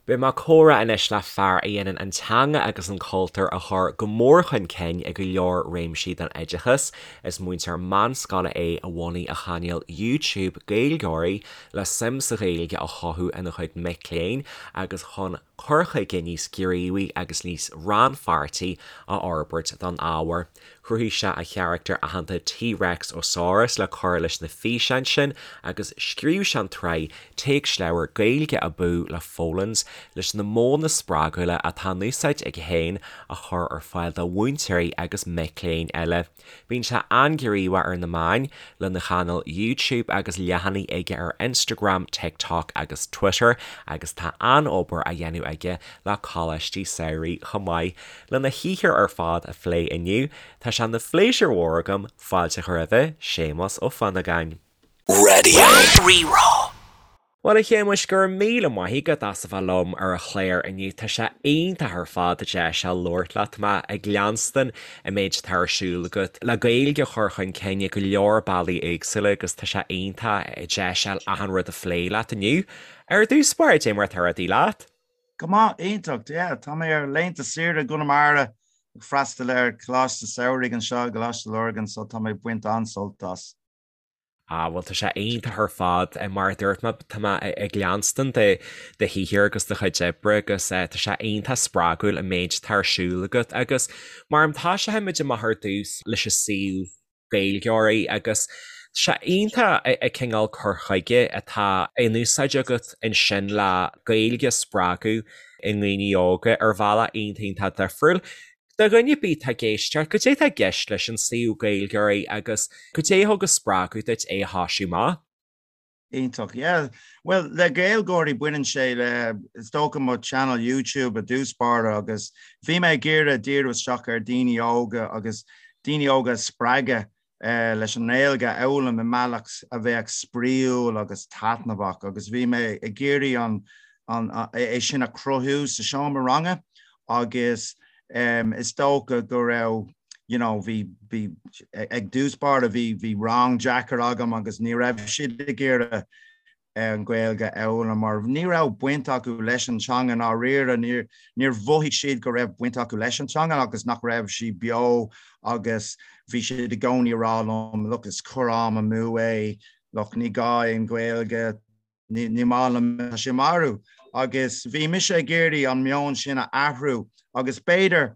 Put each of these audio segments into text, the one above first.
Beidh mé ag comhrá anois le fear a dhéanann an teanga agus an cultúr a chur go mór chun cinn i go leor réimsí den oideachas. Is múinteoir meánscoile é a bhunaigh a chainéal YouTube Gaeilgeoirí le suim sa Ghaeilge a chothú ina chuid mic léinn agus chun cur chuige níos gníomhaí agus níos rannpháirtí a fhorbairt don ábhar. Chruthaigh sé a charachtar aitheanta T-Rex Osaurus le cur leis na físeáin sin agus scríobh sé an tsraith téacsleabhar Gaeilge Abú le Folens leis na modhanna spreagúla atá in úsáid aige féin a chur ar fáil do mhúinteoirí agus mic léinn eile. Bíonn sé an-ghníomhach ar na meáin, lena chainéal YouTube agus leathanaigh aige ar Instagram, TikTok agus Twitter agus tá an-obair á dhéanamh aige le coláistí samhraidh chomh maith. Lena shaothar ar fad a phlé inniu, tá sé ina phléisiúr mhór agam fáilte a chur roimhe, Séamus Ó Fionnagáin. Raidió Rí-Rá. Bhuel, a Shéamuis, go raibh míle maith agat as a bheith liom ar an chlár inniu. Tá sé iontach ar fad an deis seo labhairt leat. Tá mé ag leanstan an méid atá ar siúl agat le Gaeilge a chur chun cinn i go leor bealaí éagsúla agus tá sé iontach an deis a fháil achan rud a phlé leat inniu. Ar dtús báire, cad é mar atá rudaí leat? Go maith, iontach, yeah. Tá mé ar laethanta saoire i gConamara ag freastal ar Choláiste Samhraidh anseo i gColáiste Lurgan so tá mé ag baint an-sult as. Ah, bhuel tá sé iontach ar fad. Mar a dúirt mé, tá mé ag leanstan do do shaothar agus do chuid oibre agus tá sé iontach spreagúil an méid atá ar siúl agat agus mar tosóidh muid amach ar dtús leis an suíomh Gaeilgeoirí agus tá sé iontach an cineál cur chuige atá in úsáid agat ansin le Gaeilge a spreagadh i ndaoine óga ar bhealach iontach iontach difriúil. Do dhuine ar bith atá ag éisteacht, cad é atá i gceist leis an suíomh Gaeilgeoirí agus cad é a thug an spreagadh duit é a thoisiú amach? Iontach, yeah. Bhuel, le Gaeilgeoirí baineann sé le, is dócha mo channel YouTube i dtús báire agus bhí mé ag iarraidh díriú isteach ar daoine óga agus daoine óga a spreagadh leis an nGaeilge a fhoghlaim i mbealach a bheadh spraíúil agus taitneamhach agus bhí mé ag iarraidh an, an, é sin a chruthú sa seomra ranga agus is dócha go raibh you know bhí bhí ag dtús báire bhí bhí rang deacair agam agus ní raibh siad ag iarraidh an Ghaeilge a fhoghlaim mar ní raibh baint acu leis an teanga i ndáiríre níor níor mhothaigh siad go raibh baint acu leis an teanga agus nach raibh sí beo agus bhí siad i gcónaí ag rá liom look is cur am amú é look ní gá an Ghaeilge Ní maith liom, tá sé marbh. Agus bhí mise ag iarraidh an meon sin a athrú agus b'fhéidir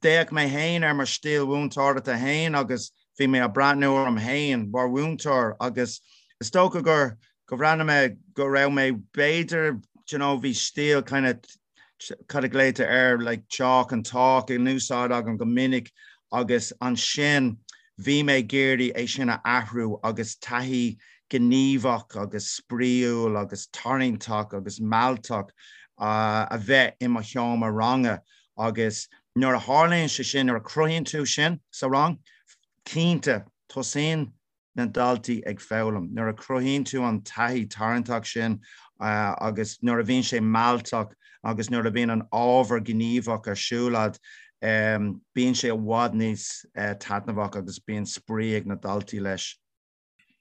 d'fhéach mé féin ar mo stíl mhúinteoireachta féin agus bhí mé ag breathnú orm féin mar mhúinteoir agus is dócha gur go bhreathnaigh mé go raibh mé b'fhéidir do you know bhí stíl kind of cad a ghlaotar air like chalk and talk in úsáid agam go minic agus ansin bhí mé ag iarraidh é sin a athrú agus taithí gníomhach agus spraíúil agus tarraingteach agus mealltach a bheith i mo sheomra ranga agus nuair a tharlaíonn sé sin, nuair a chruthaíonn tú sin sa rang, cinnte tosaíonn na daltaí ag foghlaim. Nuair a chruthaíonn tú an taithí tarraingteach sin agus nuair a bhíonn sé mealltach agus nuair a bhíonn an ábhar gníomhach ar siúl agat, bíonn sé i bhfad níos taitneamhach agus bíonn spraoi ag na daltaí leis.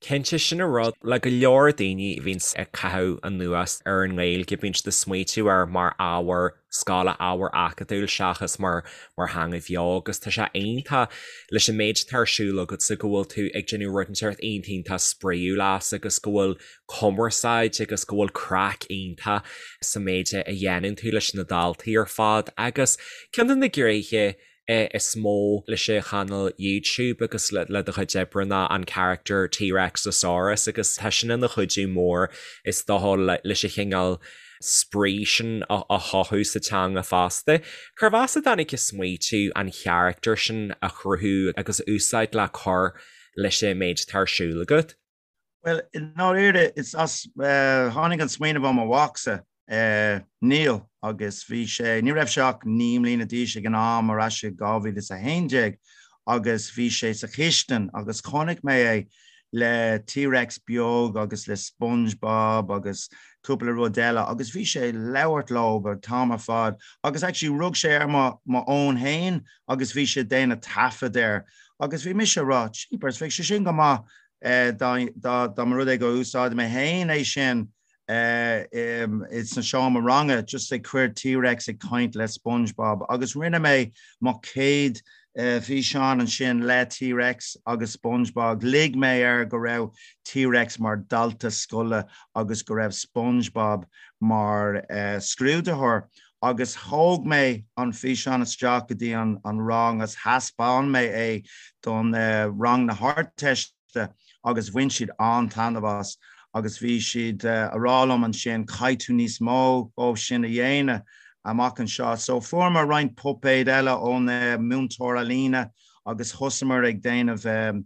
Cinnte, sin an rud le go leor daoine a bhíonns ag caitheamh anuas ar an nGaeilge, bíonn siad ag smaoitiú air mar ábhar scoile, ábhar acadúil seachas mar mar theanga bheo agus tá sé iontach leis an méid atá ar siúl agatsa go bhfuil tú ag déanamh rud inteacht iontach iontach spraíúil as agus go bhfuil cumarsáid agus go bhfuil craic iontach sa méid a dhéanann tú leis na daltaí ar fad agus ceann de na gnéithe is mó leis an chainéal YouTube agus le do chuid oibre ná an charachtar T-Rexosaurus agus tá sin ina chuidiú mór is dócha leis an chineál spraoi sin a chothú sa teanga fosta. Cérbh as a dtáinig an smaoitiú an charachtar sin a chruthú agus a úsáid le cur leis an méid atá ar siúl agat? Bhuel, i ndáiríre, is as, tháinig an smaoineamh ó mo mhacsa, Niall, agus bhí sé, ní raibh sé ach 9 mbliana d'aois ag an am, ar ais i 2011, agus bhí sé sa chistin agus chonaic mé é le T-Rex beag agus le SpongeBob agus cúpla rud eile agus bhí sé ag labhairt leo an t-am ar fad agus actually rug sé ar mo mo fhón féin agus bhí sé ag déanamh taifead air agus bhí mise ag rá, jeepers, bheadh sé sin go maith dá dá mba rud é go úsáidfidh mé féin é sin. Sa seomra ranga just ag cur T-Rex ag caint le SpongeBob agus rinne mé mo chéad físeán ansin le T-Rex agus SpongeBob. Lig mé air go raibh T-Rex mar dalta scoile agus go raibh SpongeBob mar scrúdaitheoir agus thóg mé an físeán isteach go dtí an rang agus thaispeáin mé é don rang na hArdteiste. agus bhain siad an-taitneamh as agus bhí siad a rá liom ansin caithfidh tú níos mó dhó sin a dhéanamh amach anseo. So fuaireamar roinnt puipéad eile ón múinteoir ealaíne agus thosaíomar ag déanamh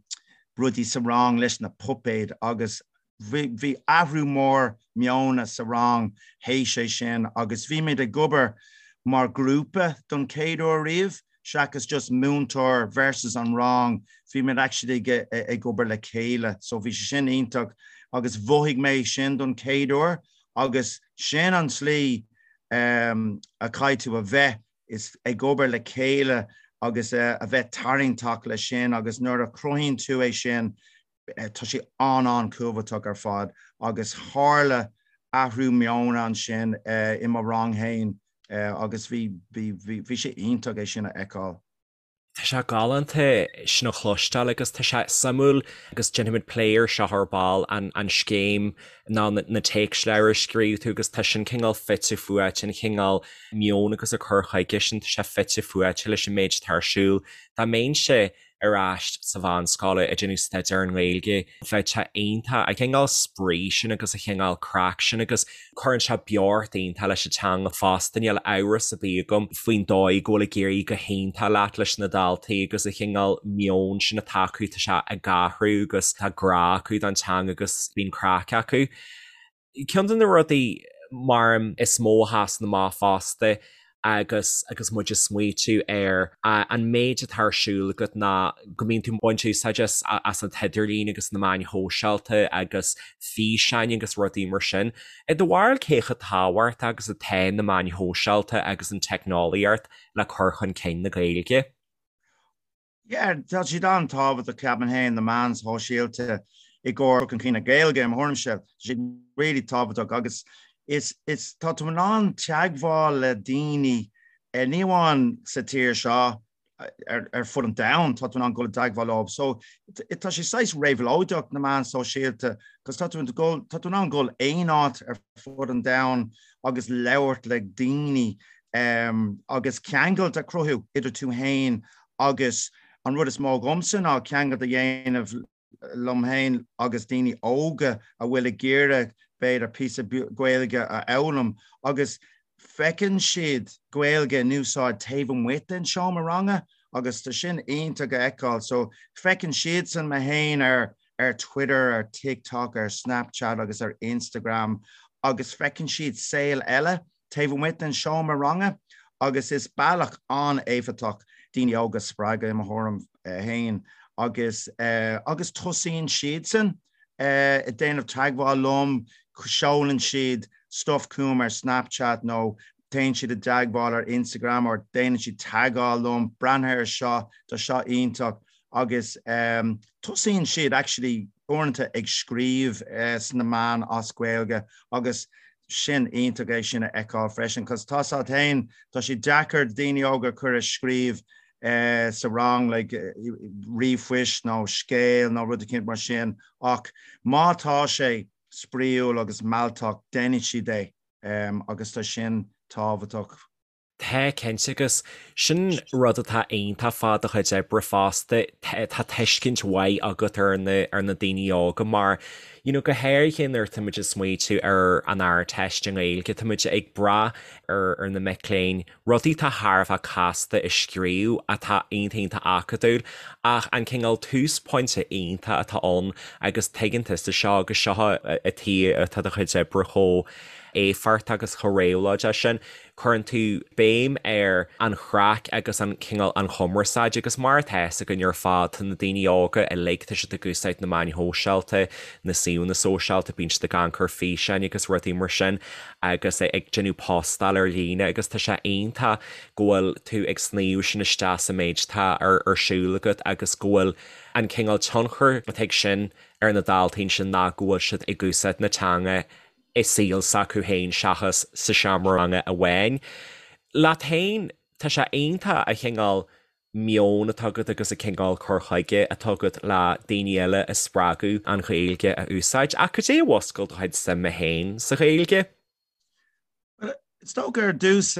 rudaí sa rang leis na puipéid agus bhí athrú mór meona sa rang théis é sin agus bhí muid ag obair mar ghrúpa don chéad uair riamh. seachas just múinteoir versus an rang, bhí muid actually ag obair le chéile so bhí sé sin iontach agus mhothaigh mé sin don chéad uair agus sin an tslí a chaithfidh tú a bheith is ag obair le chéile agus a bheith tarraingteach leis sin agus nuair a chruthaíonn tú é sin Tá sé an-an-chumhachtach ar fad agus tharla athrú meoin ansin i mo rang féin agus bhí bhí sé iontach é sin a fheiceáil. Tá sé galánta sin a chloisteáil agus tá sé suimiúil agus déanfaimid plé air seo ar ball, an scéim ná na téacsleabhair a scríobh tú agus tá sin cineál fite fuaite, an cineál meoin agus an cur chuige sin, tá sé fite fuaite leis an méid atá ar siúl. Dá mbeinnse ar ais sa mheánscoil ag déanamh staidéar ar an nGaeilge. Bheadh sé iontach, an cineál spraoi sin agus an cineál craic sin agus cuireann sé beocht iontach leis an teanga fosta. Níl amhras ar bith agam faoin dóigh go bhfuil ag éirí go hiontach leat leis na daltaí agus an cineál meon sin atá acu, tá sé ag athrú agus tá grá acu don teanga agus bíonn craic acu. Ceann de na rudaí mar is mó a sheasann amach fosta agus agus muid ag smaoitiú ar an méid atá ar siúl agat ná go mbíonn tú ag baint úsáid as as an t-idirlíon agus na meáin shóisialta agus físeáin agus rudaí mar sin. I do bharúil cé chomh tábhachtach agus atá na meáin shóisialta agus an teicneolaíocht le cur chun cinn na Gaeilge? Yeah, tá siad an-tábhachtach, ceapaim féin, na meáin shóisialta i gcomhair cur chun cinn na Gaeilge, i mo thuairimse, tá siad really tábhachtach agus is, is, tá tú in ann teagmháil le daoine, ní amháin sa tír seo, ar, ar fud an domhain, tá tú in ann dul i dteagmháil leo. So, tá sé saghas réabhlóideach, na meáin sóisialta, cos tá tú in dul, tá tú in ann dul aon áit ar fud an domhain agus labhairt le daoine agus ceangailt a chruthú idir tú féin agus an rud is mó dhomsa ná ceangailt a dhéanamh liom féin agus daoine óga a bhfuil ag iarraidh b'fhéidir píosa Gaeilge a fhoghlaim agus feiceann siad Gaeilge in úsáid taobh amuigh den seomra ranga agus tá sin iontach a fheiceáil. So feiceann siadsan mé féin ar ar Twitter, ar TikTok, ar Snapchat agus ar Instagram agus feiceann siad saol eile taobh amuigh den seomra ranga agus is bealach an-éifeachtach daoine óga a spreagadh i mo thuairim féin agus agus tosaíonn siadsan ag déanamh teagmháil liom, seolann siad stuff chugam ar Snapchat nó téann siad i dteagmháil ar Instagram or déanann siad tagáil liom, breathnaigh ar seo, tá seo iontach agus tosaíonn siad actually uaireanta ag scríobh sna meáin as Gaeilge agus sin iontach é sin a fheiceáil freisin cos tá 's agat féin, tá sé deacair daoine óga a chur ag scríobh sa rang like ríomhphoist nó scéal nó rud eicínt mar sin ach má tá sé spraíúil agus mealltach déanfaidh siad é agus tá sin tábhachtach. Tá, cinnte, agus sin rud atá iontach fá do chuid oibre fosta, tá tuiscint mhaith agat ar na, ar na daoine óga mar, you know, go háirithe nuair atá muid ag smaoitiú ar an Ardteist i nGaeilge, tá muid ag brath ar, ar na mic léinn rudaí atá thar a bheith casta a scríobh atá iontach iontach acadúil ach an cineál túsphointe iontach atá ann agus tuigeann tusa seo agus seo an tuige atá do chuid oibre chomh éifeachtach agus chomh réabhlóideach sin. Cuireann tú béim ar an chraic agus an cineál an chumarsáid agus mar atá fhios againn ar fad tá na daoine óga uilig, tá siad ag úsáid na meáin shóisialta, na suíomhanna sóisialta, bíonn siad ag amharc ar físeáin agus rudaí mar sin agus ag déanamh postáil ar líne agus tá sé iontach go bhfuil tú ag sníomh sin isteach sa méid atá ar siúl agat agus go bhfuil an cineál tionchar atá ag sin ar na daltaí ansin ná go bhfuil siad ag úsáid na teanga. i saol s'acu féin seachas sa seomra ranga amháin. Leat féin, tá sé iontach an cineál meon atá agat agus an cineál cur chuige atá agat le daoine eile a spreagadh an Ghaeilge a úsáid. Ach cad é a mhúscail do chuid suime féin sa Ghaeilge? Bhuel, is dócha ar dtús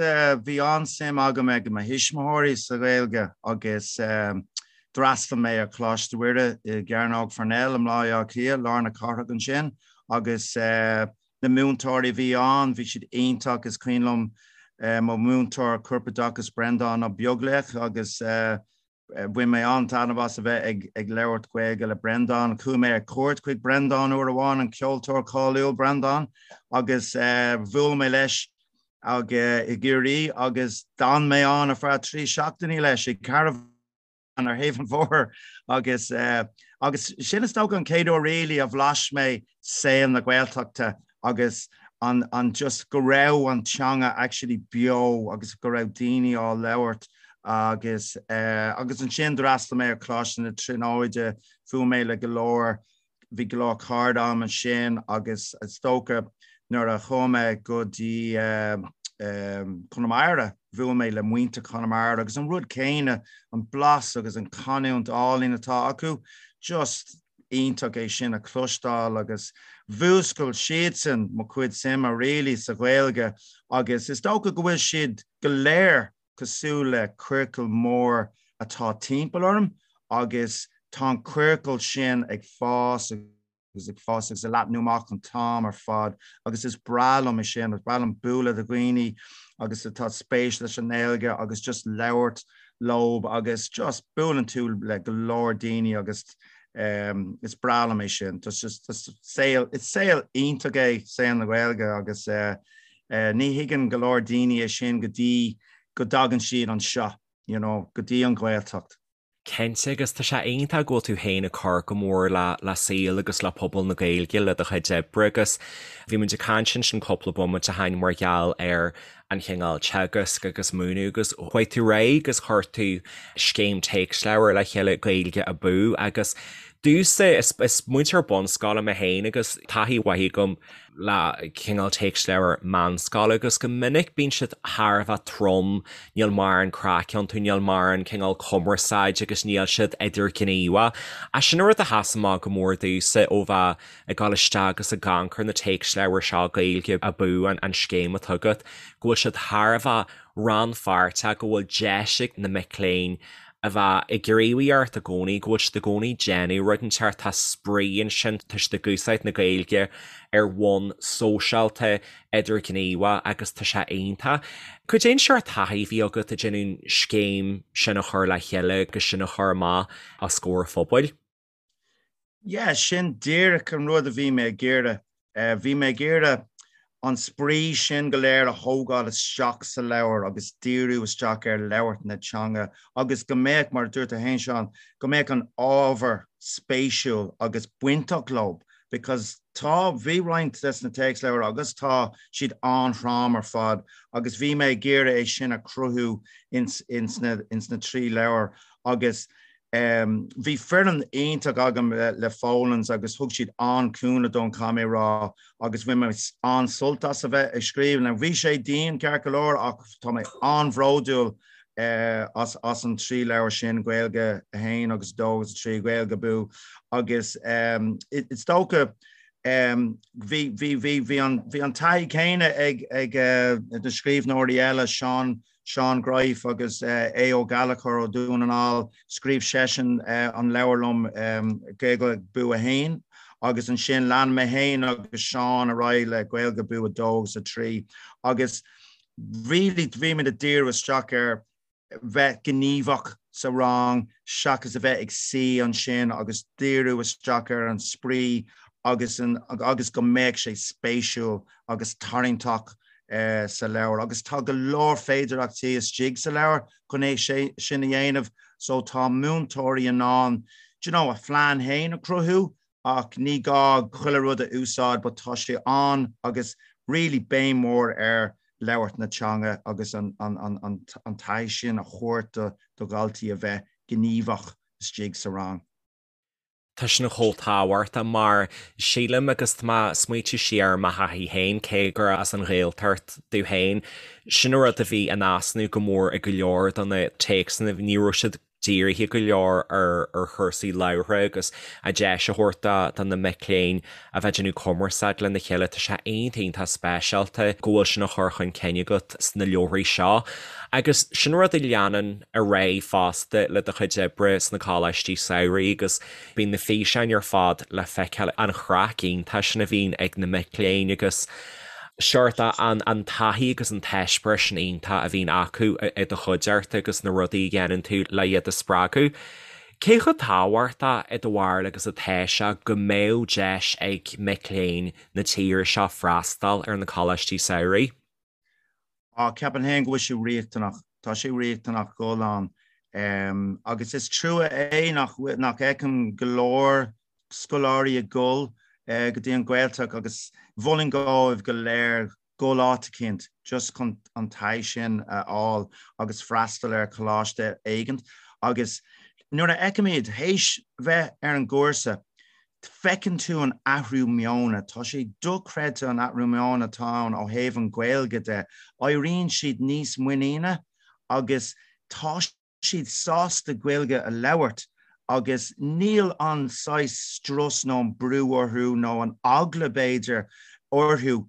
bhí an-suim agam ag mo thuismitheoirí sa Ghaeilge agus d'fhreastail mé ar Choláiste Mhuire i gCearnóg Pharnell i mBaile Átha Cliath, lár na cathrach ansin agus na múinteoirí a bhí ann, bhí siad iontach. Is cuimhin liom mo mhúinteoir corpoideachais Breandán Ó Beaglaoich agus Bhain mé an-taitneamh as a bheith ag labhairt Gaeilge le Breandán. Chuaigh mé ar cuairt chuig Breandán uair amháin, an ceoltóir cáiliúil Breandán, agus bhuail mé leis ag i gCiarraí agus d'fhan mé ann ar feadh 3 seachtainí leis i gcarbhán ar thaobh an bhóthair agus agus sin is dócha an chéad uair really a bhlais mé saol na Gaeltachta agus an an just go raibh an teanga actually beo agus go raibh daoine á labhairt agus eh agus ansin d'fhreastail mé ar Choláiste na Tríonóide, bhuail mé le go leor, bhí go leor cairde agam ansin agus is dócha nuair a chuaigh mé go dtí eh Conamara, bhuail mé le muintir Chonamara agus an rud céanna, an blas agus an canúint álainn atá acu, just iontach é sin a chloisteáil agus mhúscail siadsan mo chuid suime really sa Ghaeilge agus is dócha go bhfuil siad go léir cosúil le ciorcal mór atá timpeall orm agus tá an ciorcal sin ag fás agus ag fás agus ag leathnú amach an t-am ar fad agus is breá liom é sin, is breá liom bualadh le dhaoine agus atá spéis leis an nGaeilge agus just labhairt leob agus just buaileann tú le go leor daoine agus is breá liom é sin. Just just saol is saol iontach é saol na Gaeilge agus ní thuigeann go leor daoine é sin go dtí go dtagann siad anseo, you know, go dtí an Ghaeltacht. Cinnte, agus tá sé iontach go bhfuil tú féin ag cur go mór le le saol agus le pobal na Gaeilge le do chuid oibre agus bhí muid ag caint ansin cúpla bomaite ó shin mar gheall ar an chineál teagasc agus múineadh agus chuaigh tú ar aghaidh agus chuir tú scéim téacsleabhar le chéile Gaeilge Abú agus domhsa is is múinteoir bunscoile mé féin agus taithí mhaith agam le cineál téacsleabhar meánscoile agus go minic bíonn siad thar a bheith trom, níl mórán craic iontu, níl mórán cineál cumarsáid agus níl siad idirghníomhach. Ach sin an rud a sheas amach go mór domhsa ó bheith ag dul isteach agus ag amharc ar na téacsleabhair seo, Gaeilge Abú an scéim atá agat, go bhfuil siad thar a bheith rannpháirteach, go bhfuil deis ag na mic léinn a bheith ag gníomhaíocht i gcónaí, go bhfuil siad i gcónaí ag déanamh rud inteacht, tá spraoi ansin, tá siad ag úsáid na Gaeilge ar bhonn sóisialta, idirghníomhach agus tá sé iontach. Cad é an seort taithí a bhí agat ag déanamh an scéim sin a chur le chéile agus sin a chur amach os comhair an phobail? Yeah, sin díreach an rud a bhí mé ag iarraidh. Bhí mé ag iarraidh an spraoi sin go léir a thógáil isteach sa leabhar agus díriú isteach ar labhairt na teanga agus go mbeadh, mar a dúirt tú féin Seán, go mbeadh an ábhar spéisiúil agus bainteach leo because tá, bhí roinnt des na téacsleabhair agus tá siad an-throm ar fad agus bhí mé ag iarraidh é sin a chruthú ins, ins na, ins na 3 leabhar agus Bhí foireann iontach agam le Folens agus thug siad an-chúnamh dom, caithfidh mé a rá, agus bhain mé an-sult as a bheith ag scríobh. Now bhí sé dian ceart go leor ach tá mé an-bhródúil as as an 3 leabhar sin, Gaeilge 1 agus 2 agus 3, Gaeilge Abú agus is dócha bhí bhí bhí bhí an bhí an taithí céanna ag ag na scríbhneoirí eile, Seán Seán Greif agus Aodh Ó Gallchóir ó Dhún na nGall, scríobh seisean an leabhar liom Gaeilge Abú 1 agus ansin lean mé féin agus Seán ar aghaidh le Gaeilge Abú 2 agus 3 agus really bhí muid ag díriú isteach ar bheith gníomhach sa rang seachas a bheith ag suí ansin agus díriú isteach ar an spraoi agus an agus go mbeadh sé spéisiúil agus tarraingteach sa leabhar agus tá go leor féidireachtaí istigh sa leabhar chun é sin a dhéanamh so tá múinteoirí in ann do you know, a phlean féin a chruthú ach ní gá chuile rud a úsáid but tá sé ann agus really béim mhór ar labhairt na teanga agus an, an, an, an, an taithí sin a thabhairt do, do dhaltaí a bheith gníomhach istigh sa rang. Tá sin chomh tábhachtach mar sílim agus tá mé ag smaoitiú siar ar mo thaithí féin, cé gur as an Ghaeltacht domh féin, sin an rud a bhí in easnamh go mór i go leor de na téacsanna, ní raibh siad dírithe go leor ar chúrsaí labhartha agus an deis a thabhairt do na mic léinn a bheith ag déanamh cumarsáid lena chéile. Tá sé iontach iontach speisialta go bhfuil sin á chur chun cinn agat sna leabharthaí seo. Agus sin rud a leanann ar aghaidh fosta le do chuid oibre sna coláistí samhraidh agus bíonn na físeáin ar fad le feiceáil, an chraic iontach sin a bhíonn ag na mic léinn agus seort an taithí agus an t-eispéireas sin iontach a bhíonn acu i do chuideachta agus na rudaí a dhéanann tú le iad a spreagadh. Cé chomh tábhachtach i do bharúil agus atá sé go mbeadh deis ag mic léinn na tíre seo freastal ar na coláistí samhraidh? Á, ceapaim féin go bhfuil sé riachtanach. Tá sé riachtanach dul ann. Agus is trua é nach nach fheicim go leor scoláirí ag dul go dtí an Ghaeltacht agus mholfainn dóibh go léir dul áit eicínt just chun an taithí sin a fháil agus freastal ar choláiste éigint. Agus nuair a fheicim iad théis bheith ar an gcúrsa, feiceann tú an athrú meoin, tá sé dochreidte an athrú meoin atá ann ó thaobh an Ghaeilge de. Éiríonn siad níos muiníne agus tá siad sásta Gaeilge a labhairt agus níl an saghas strus nó an brú orthu nó an eagla b'fhéidir orthu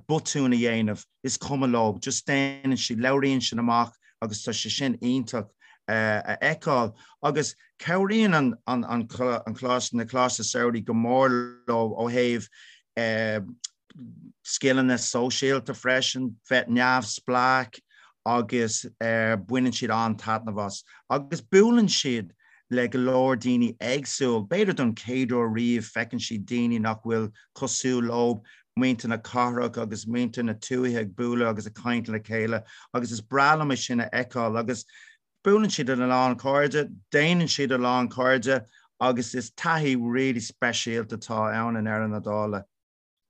botún a dhéanamh, is cuma leo, just déanann siad, labhraíonn siad amach agus tá sé sin iontach a fheiceáil. Agus cabhraíonn an an coláiste, na coláiste samhraidh go mór leo ó thaobh scileanna sóisialta freisin, bheith neamhspleách agus baineann siad an-taitneamh as. Agus buaileann siad le go leor daoine éagsúil, b'fhéidir don chéad uair riamh feiceann siad daoine nach bhfuil cosúil leo, muintir na cathrach agus muintir na tuaithe ag bualadh agus ag caint le chéile agus is breá liom é sin a fheiceáil agus buaileann siad le a lán cairde, déanann siad a lán cairde agus is taithí really speisialta atá ann i ndeireadh na dála.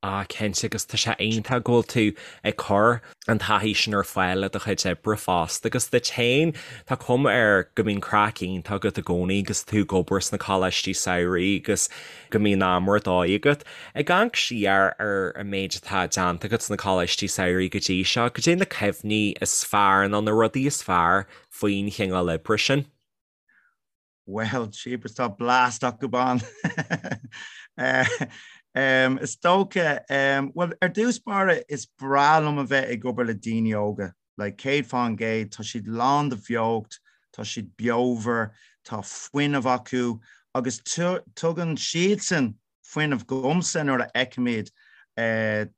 Ah cinnte agus tá sé iontach go bhfuil tú ag cur an taithí sin ar fáil le do chuid oibre fosta agus duit féin tá cuma air go mbíonn craic iontach agat i gcónaí agus tú ag obair sna coláistí samhraidh agus go mbíonn am ar dóigh agat. Ag amharc siar ar an méid atá déanta agat sna coláistí samhraidh go dtí seo, cad é na cuimhní is fearr nó na rudaí is fearr faoin chineál oibre sin? Bhuel, jeepers, tá blast acu ann. Is dócha, bhuel, ar dtús báire, is breá liom a bheith ag obair le daoine óga. Like, 100%, tá siad lán de bheocht, tá siad beomhar, tá fuinneamh acu agus tugann siadsan fuinneamh dhomsa nuair a fheicim iad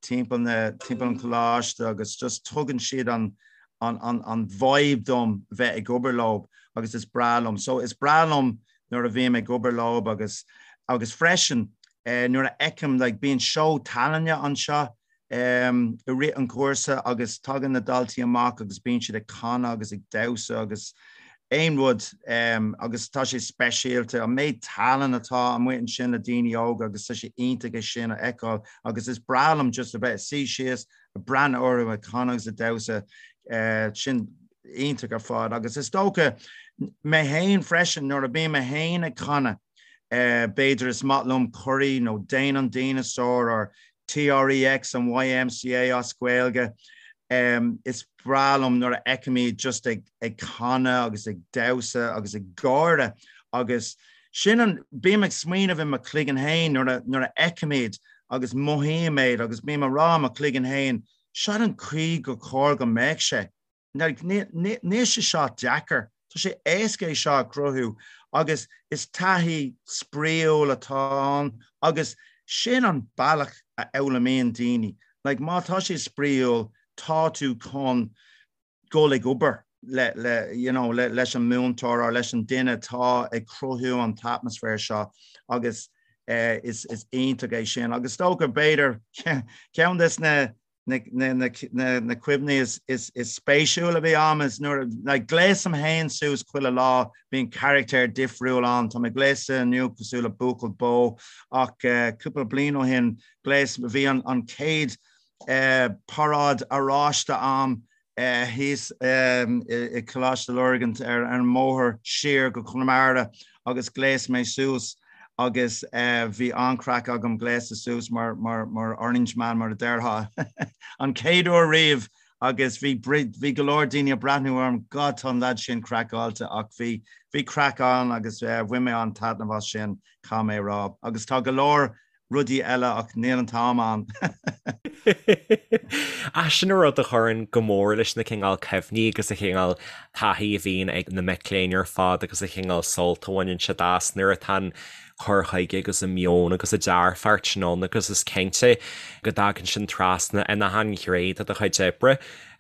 timpeall na timpeall an choláiste agus just tugann siad an an an an vibe dom bheith ag obair leo agus is breá liom. So is breá liom nuair a bhím ag obair leo agus agus freisin nuair a fheicim like bíonn seó tallainne anseo i rith an chúrsa agus tagann na daltaí amach agus bíonn siad ag canadh agus ag damhsa agus aon rud agus tá sé speisialta an méid tallann atá amuigh ansin le daoine óga agus tá sé iontach é sin a fheiceáil agus is breá liom just a bheith suí síos ag breathnú orthu ag canadh agus ag damhsa sin iontach ar fad agus is dócha mé féin freisin nuair a bím mé féin ag canadh b'fhéidir is maith liom Corrie nó Dane an Dinosar or TREX an YMCA as Gaeilge. Is breá liom nuair a fheicim iad just ag ag canadh agus ag damhsa agus ag gáire agus sin an, bím ag smaoineamh i mo chloigeann féin nuair a nuair a fheicim iad agus mothaím iad agus bím ag rá i mo chloigeann féin, seo an chaoi gur chóir go mbeadh sé. Níl sé seo deacair, tá sé éasca é seo a chruthú agus is taithí spraíúil atá ann agus sin an bealach a fhoghlaimíonn daoine. Like má tá sé spraíúil tá tú chun dul ag obair le le you know le leis an múinteoir or leis an duine atá ag cruthú an t-atmaisféar seo agus eh, is is iontach é sin agus is dócha b'fhéidir ceann des na na cuimhní is spéisiúil a bhí a'm is nuair a like gléasaim féin suas chuile lá, bíonn carachtar difriúil ann, tá mé gléasta inniu cosúil le buachaill bó ach cúpla bliain ó shin ghléas, bhí an chéad paráid oráiste a'm thíos i Coláiste Lurgan ar an mbóthar siar go Conamara agus ghléas mé suas. Agus bhí an-chraic agam gléasta suas mar mar Orange Man mar a déarfá an chéad uair riamh agus bhí bhí go leor daoine ag breathnú orm, God tá an lad sin craiceáilte ach bhí bhí craic ann agus bhain mé an-taitneamh as sin, caithfidh mé a rá. Agus tá go leor rudaí eile ach níl an t-am ann. Ach sin an rud a chuireann go mór leis na cineál cuimhní agus an chineál taithí a bhíonn ag na mic léinn ar fad agus an chineál sult a bhaineann siad as nuair atá an cur chuige agus an meon agus an dearfacht sin ann agus is cinnte go dtagann sin trasna in achan ghné de do chuid oibre.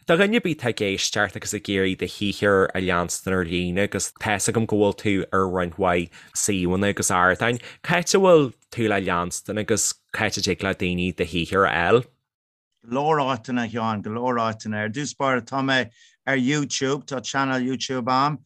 Do dhuine ar bith atá ag éisteacht agus ag iarraidh do shaothar a leanstan ar líne agus tá's agam go bhfuil tú ar roinnt mhaith suíomhanna agus ardáin, cá háit a bhfuil tú le leanstan agus cá háit a dtig le daoine do shaothar a fháil? Go leor áiteanna, a Sheáin, go leor áiteanna. Ar dtús báire, tá mé ar YouTube, tá channel YouTube a'm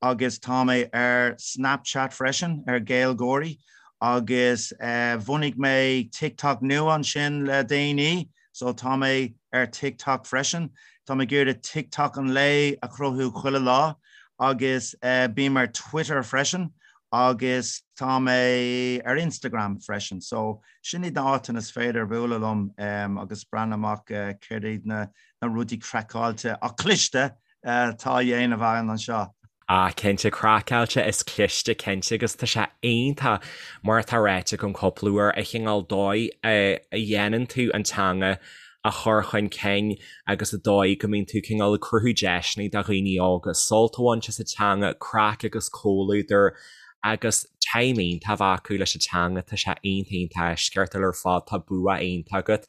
agus tá mé ar Snapchat freisin, ar GaelGáirí, agus bhunaigh mé TikTok nua ansin le déanaí, so tá mé ar TikTok freisin. Tá mé ag iarraidh TikTok an lae a chruthú chuile lá agus bím ar Twitter freisin agus tá mé ar Instagram freisin. So Sin iad na áiteanna is féidir bualadh liom agus breathnú amach céard iad na rudaí craiceáilte ach cliste atá á dhéanamh againn anseo. Ah cinnte, craiceáilte is cliste cinnte agus tá sé iontach mar atá ráite agam cúpla uair an chineál dóigh a dhéanann tú an teanga a chur chun cinn agus an dóigh go mbíonn tú cineál ag cruthú deiseanna do dhaoine óga sult a bhaint as an teanga, craic agus comhluadar agus time iontach a bheith acu leis an teanga, tá sé iontach iontach eisceachtúil ar fad, tá bua iontach agat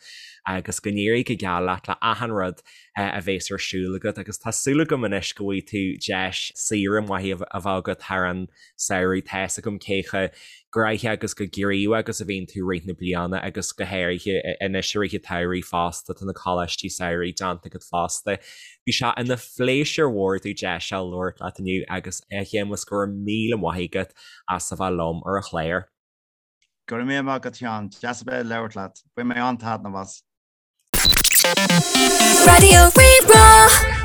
agus go n-éirí go geal leat le achan rud a bhéas ar siúl agat agus tá súil agam anois go bhfaighidh tú deis saoire mhaith a bheith agat thar an samhradh, tá fhios agam cé chomh gnoitheach agus chomh gníomhach agus a bhíonn tú i rith na bliana agus go háirithe anois i rith an tsamhraidh fosta, tá na coláistí samhraidh déanta agat fosta. Bhí sé ina phléisiúr mhór domh deis a labhairt leat inniu agus a Shéamuis go raibh míle maith agat as a bheith liom ar an chlár. Go raibh míle maith agat a Sheáin, deas a bheith ag labhairt leat. Bhain mé an-taitneamh as. Raidió Rí-Rá.